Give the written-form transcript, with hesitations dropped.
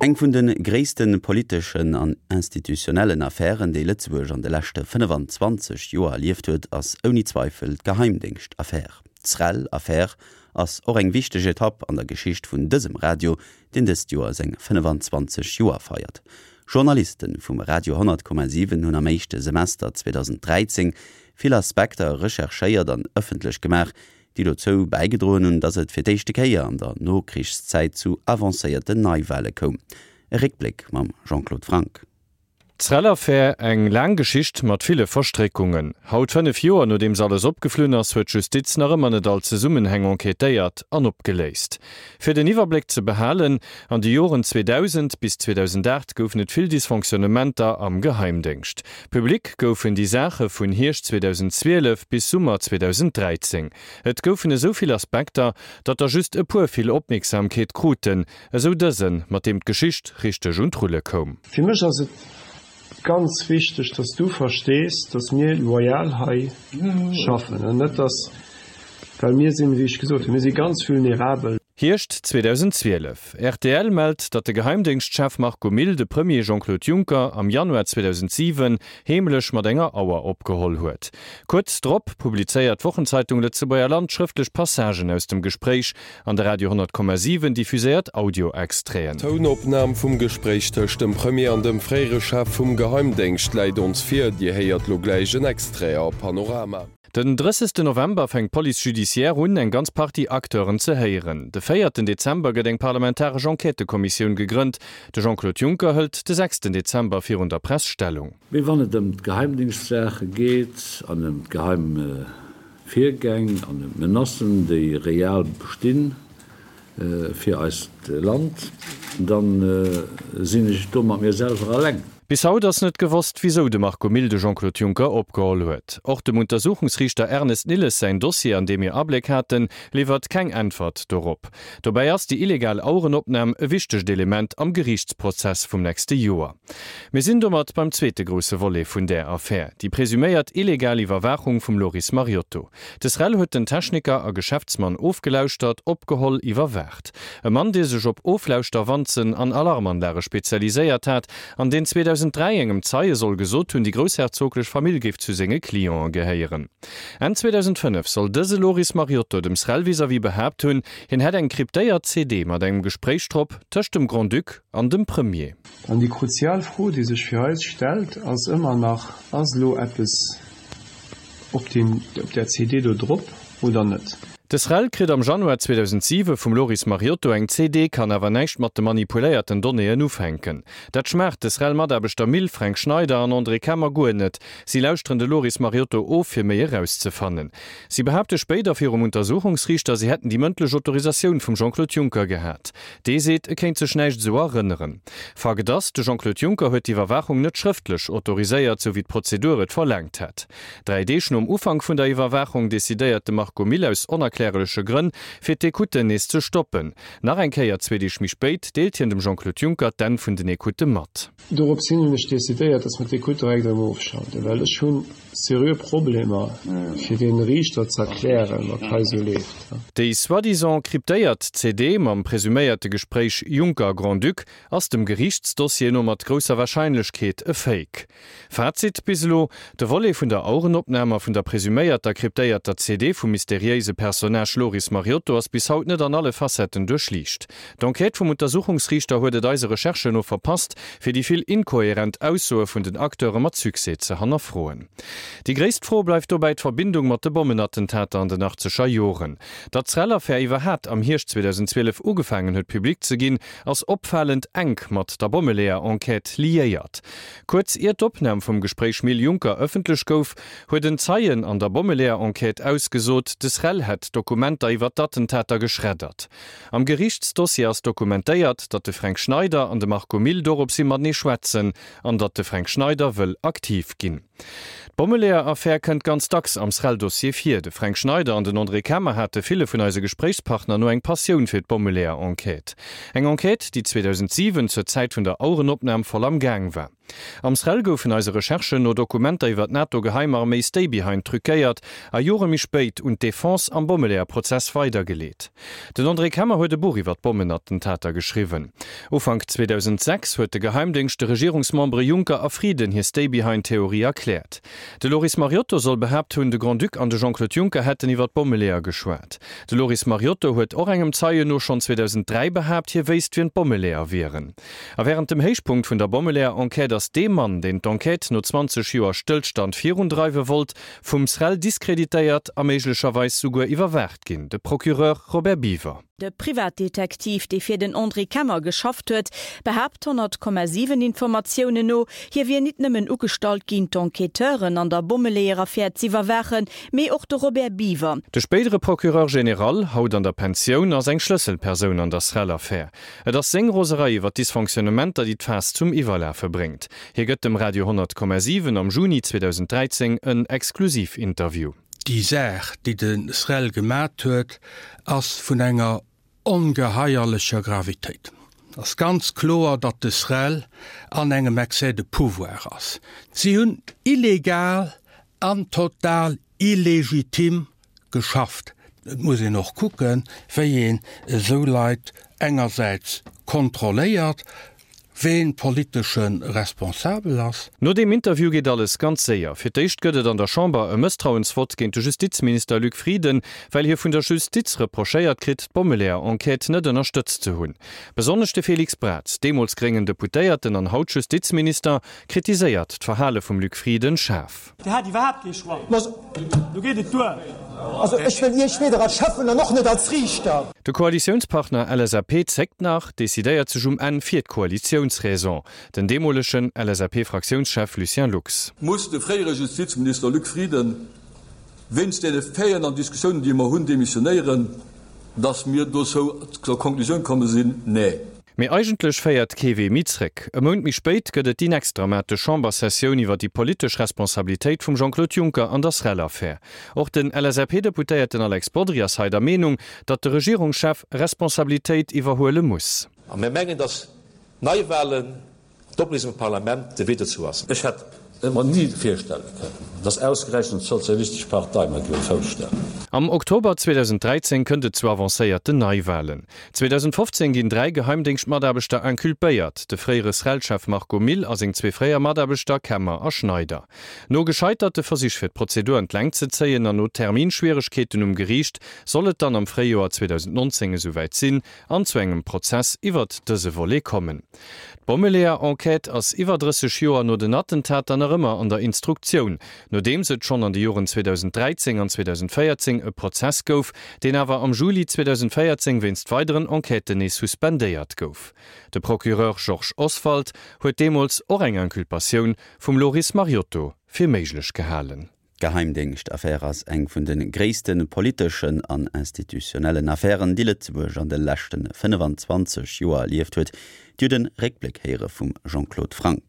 Eng vun de gréisste politeschen an institutionellen Affären, déi Lëtzebuerg an de leschte 25 Joer erlieft huet, ass ouni Zweifel d'Geheimdéngschtaffär. D'Srel-Affär ass och eng wichteg Etapp an der Geschicht vun dësem Radio, deen dëst Joer seng 25 Joer feiert. Journaliste vum Radio 100,7 hunn am éischte Semester 2013 vill Aspekter recherchéiert an ëffentlech gemaach, déi dozou bäigedroen hunn, datt et fir d'éischte Kéier an der Nokrichszäit zu avancéierten Neiwale koum. E Réckbléck mam Jean-Claude Franck. D'Srel-Affär, eng laang Geschicht mat ville Verstréckungen. Haut, 5 Joer nodeems alles opgeflunn ass, huet d'Justiz nach ëmmer net all Zesummenhäng enquêtéiert an opgeléist. Fir den Iwwerbléck ze behalen, An de Joren 2000 bis 2008 goufen et vill Dysfonctionnementer am Geheimdéngscht. Public goufen déi Saache vun Hierscht 2012 bis Summer 2013. Et goufen esou vill Aspekter, datt der just e puer vill Opmierksamkeet kruten, esou dësen, mat deem d'Geschicht richteg un d'Rulle koum. Fir mech ass et ganz wichteg, dass du verstees, dass mir loyal hei schaffen an net dass, well mir sinn, wéi ech gesot hunn, mir si ganz vulnerabel. Hierscht 2012, rtl mellt, datt de Geheimdéngschtchef Marco Mille de Premier Jean-Claude Juncker am Januar 2007 heemlech mat enger Auer opgeholl huet. Kuerz drop publizéiert d'Wochenzeitung Lëtzebuerger Land schrëftlech Passagen aus dem Gespréich an de Radio 100,7 diffuséiert Audio-Extraiten. D'Tounopnam vum Gespréich tëscht dem Premier an dem fréiere Chef vum Geheimdéngscht läit ons vir. Dir héiert lo gläich en Extrait a Panorama. Den 30 November fänkt d'Police judiciaire un, eng ganz Partie Acteuren ze héieren. De véierten Dezember gëtt eng parlamentaresch Enquêtëkommissioun gegrënnt. De Jean-Claude Juncker hëlt de sechsten Dezember virun der Press Stellung. Mee wann et ëm d'Geheimdingschtsaache geet an ëm d'geheim Virgäng an ëm d'Menacen, déi real bestinn fir eist Land, da sinn ech do mat mir selwer alleng. Bis haut ass net gewosst, wisou de Marco Mille de Jean-Claude Juncker opgeholl huet. Och dem Untersuchungsriichter Ernest Nilles säin Dossier, an deem mir Abléck haten, liwwert keng Äntwert dorop. Dobäi ass déi illegal Auerenopnam e wichtegt Element am Geriichtsprozess vum nächste Joer. Mir sinn domat beim zweete grousse Volet vun där Affär, déi presuméiert illegal Iwwerwaachung vum Loris Mariotto. De SREL huet den Techniker a Geschäftsmann ofgelauschtert, opgeholl, iwwerwaacht. E Mann, dee sech op Oflauschterwanzen an Alarmanlage spezialiséiert hat an deen 2003 engem Zeie soll gesot hunn, déi groussherzoglech Famill géif zu senge Cliente gehéieren. Enn 2005 soll dëse Loris Mariotto dem SREL vis-à-vis behaapt hunn, hien hätt eng kryptéiert CD mat engem Gespréich drop tëscht dem Grand-Duc an dem Premier. An déi kruzial Fro, déi sech fir eis stellt, ass ëmmer nach, Ass elo eppes op deem, op där CD do drop oder net? De SREL kritt am Januar 2007 vum Loris Mariotto eng CD, kann awer näischt mat de manipuléierten Donnéeën ufänken. Dat schmaacht de SREL-Mataarbechter Mille, Fränk Schneider an André Kemmer guer net. Si lauschteren de Loris Mariotto of, fir méi erauszefannen. Si behaapte spéider virum Untersuchungsriichter, si hätten déi mëndlech Autorisatioun vum Jean-Claude Juncker gehat. Dee seet, e kéint sech näischt esou erënneren. Fakt ass, de Jean-Claude Juncker huet d'Iwwerwaachung net schrëftlech autoriséiert, sou wéi d'Prozedur et verlaangt hätt. 3 Deeg nom Ufank vun der Iwwerwaachung decidéiert de Marco Mille aus onerklärleche Grënn, fir d'Ecouten nees ze stoppen. Nach eng Kéier, zwee Deeg méi spéit, deelt hien dem Jean-Claude Juncker d'Enn vun den Ecoutë mat. Dorops hin hunn ech decidéiert, dass mer d'Ecoute direkt erëm ofschalten, well ech hu seriö Problemer, fir deene Riichter ze erklären, wat hei esou leeft. Déi soi-disant kryptéiert CD mam presuméierte Gespréich Juncker-Grand-Duc ass dem Geriichtsdossier no mat grousser Warscheinlechkeet e Fake. Fazit bis elo, De Volet vun der Auerenopnam a vun der presuméierter kryptéierter CD vum mysteriéise Personnage Loris Mariotto ass bis haut net an alle Facetten duerchliicht. D'Enquête vum Untersuchungsriichter huet et eise Recherchen no verpasst, fir déi vill inkohärent Aussoe vun den Acteure mat Succès ze hannerfroen. Déi gréisst Fro bleift dobäi d'Verbindung mat de Bommenattentater an den achtzeger Joren. Datt d'SREL-Affär iwwerhaat am Hierscht 2012 ugefaangen huet public ze ginn, ass opfalend enk mat der Bommeleeër-Enquête liéiert. Kuerz ier d'Opnam vum Gespréich Mille-Juncker ëffentlech gouf, huet en Zeien an der Bommeleeër-Enquête ausgesot, de SREL hätt Dokumenter iwwer d'Attentater geschreddert. Am Geriichtsdossier ass dokumentéiert, datt de Fränk Schneider an de Marco Mille doropshi matenee schwätzen an datt de Fränk Schneider wëll aktiv ginn. D'Bommeleeër-Affär kënnt ganz dacks am SREL-Dossier vir. De Fränk Schneider an den André Kemmer hate ville vun eise Gespréichspartner no eng Passioun fir d'Bommeleeër-Enquête. Eng Enquête, déi 2007, zur Zäit vun der Auerenopnam, voll am Gaang war. Am SREL goufen eise Recherchen no Dokumenter iwwer d'NATO-Geheimarméi Stay-Behind truquéiert a Jore méi spéit un d'Defense am Bommeleeër-Prozess weidergeleet. Den André Kemmer huet e Buch iwwer d'Bommenattentater geschriwwen. Ufank 2006 huet de Geheimdéngscht de Regierungsmembere Juncker a Frieden hir Stay-Behind-Theorie erkläert. De Loris Mariotto soll behaapt hunn, de Grand-Duc an de Jean-Claude Juncker hätten iwwer d'Bommeleeër geschwat. De Loris Mariotto huet och engem Zeien no schonn 2003 behaapt, hie wéisst, wien d'Bommeleeër wieren. A wärend dem Héichpunkt vun der Bommeleeër-Enquête ass dee Mann, deen d'Enquête no 20 Joer Stëllstand virundreiwe wollt, vum SREL diskreditéiert a méiglecherweis souguer iwwerwaacht ginn, de Procureur Robert Biever. De Privatdetektiv, dee fir den André Kemmer geschafft huet, behaapt 100,7 Informatiounen no, hie wier nit nëmmen ugestallt ginn, d'Enquêteuren an der Bommeleeër-Affär z'iwwerwaachen, mee och de Robert Biever. De spéidere Procureur général, haut an der Pensioun, ass eng Schlësselpersoun an der SREL-Affär. Et ass seng Roserei iwwer d'Dysfonctionnementer, déi d'Faass zum Iwwerlafe bréngt. Hie gëtt dem Radio 100,7 am Juni 2013 en Exklusivinterview. Déi Saach, déi de SREL gemat huet, ass vun enger ongeheierlecher Gravitéit. Et ass ganz kloer, datt de SREL an engem Excès de pouvoir ass. Si hunn illegal an total illegitim geschafft. Et muss een och kucken, wéi een esou Leit engersäits kontrolléiert, ween politesche Responsabel ass. No deem Interview geet alles ganz séier. Fir d'éischt gëtt et an der Chamber e Mësstrauensvott géint de Justizminister Luc Frieden, well hie vun der Justiz reprochéiert kritt, d'Bommeleeër-Enquête net ënnerstëtzt ze hunn. Besonnesch de Félix Braz, deemools gréngen Deputéierten an haut Justizminister, kritiséiert d'Verhale vum Luc Frieden schaarf. Dir hat iwwerhaapt kee Choix. Lo geet et duer. Also ech wëll Iech weder als Schäffen an och net als Riichter. De Koalitiounspartner LSAP zéckt nach, decidéiert sech um Enn fir d'Koalitiounsraison. Den deemolegen LSAP-Fraktiounschef Lucien Lux. Muss de fréiere Justizminister Luc Frieden wéinst deene Faiten an Diskussiounen, déi mer hunn, demissionéieren? Dass mir dozou zur Konklusioun komme sinn, Nee. Mee eigentlech féiert kee Wee méi zréck. E Mount méi spéit gëtt et déi nächst dramatesch Chambersessioun iwwer déi politesch Responsabilitéit vum Jean-Claude Juncker an der SREL-Affär. Och den LSAP-Deputéierten Alex Bodry ass hei der Meenung, datt de Regierungschef Responsabilitéit iwwerhuele muss. A mir mengen, datt Neiwahlen D'Opléisung vum Parlament de Wee dozou ass. Ech hätt et mer ni virstelle kënnen, dass ausgerechent d'Sozialistesch Partei mer géif e Fouss stellen. Am Oktober 2013 kënnt et zu avancéierten Neiwalen. 2015 ginn 3 Geheimdéngschtmataarbechter inculpéiert, de fréiere SREL-Chef Marco Mille a seng zwee fréier Mataarbechter Kemmer a Schneider. No gescheiterte Versich fir d'Prozedur an d'Längt ze zéien an no Terminschwieregkeeten um Geriicht soll et dann am Fréijoer 2019 esouwäit sinn, an zu engem Prozess iwwert dëse Volet kommen. D'Bommeleeër-Enquête ass iwwer 30 Joer no den Attentater nach ëmmer an der Instruktioun, nodeems et schonn an de Joren 2013 an 2014 e Prozess gouf, deen awer am Juli 2014 wéinst weideren Enquêten nees suspendéiert gouf. De Procureur Georges Oswald huet deemools och eng Inculpatioun vum Loris Mariotto fir méiglech gehalen. D'Geheimdéngschtaffär ass eng vun de gréisste politeschen an institutionellen Affären, déi Lëtzebuerg an de leschte 25 Joer erlieft huet. Dir hutt e Réckbléck héiere vum Jean-Claude Franck.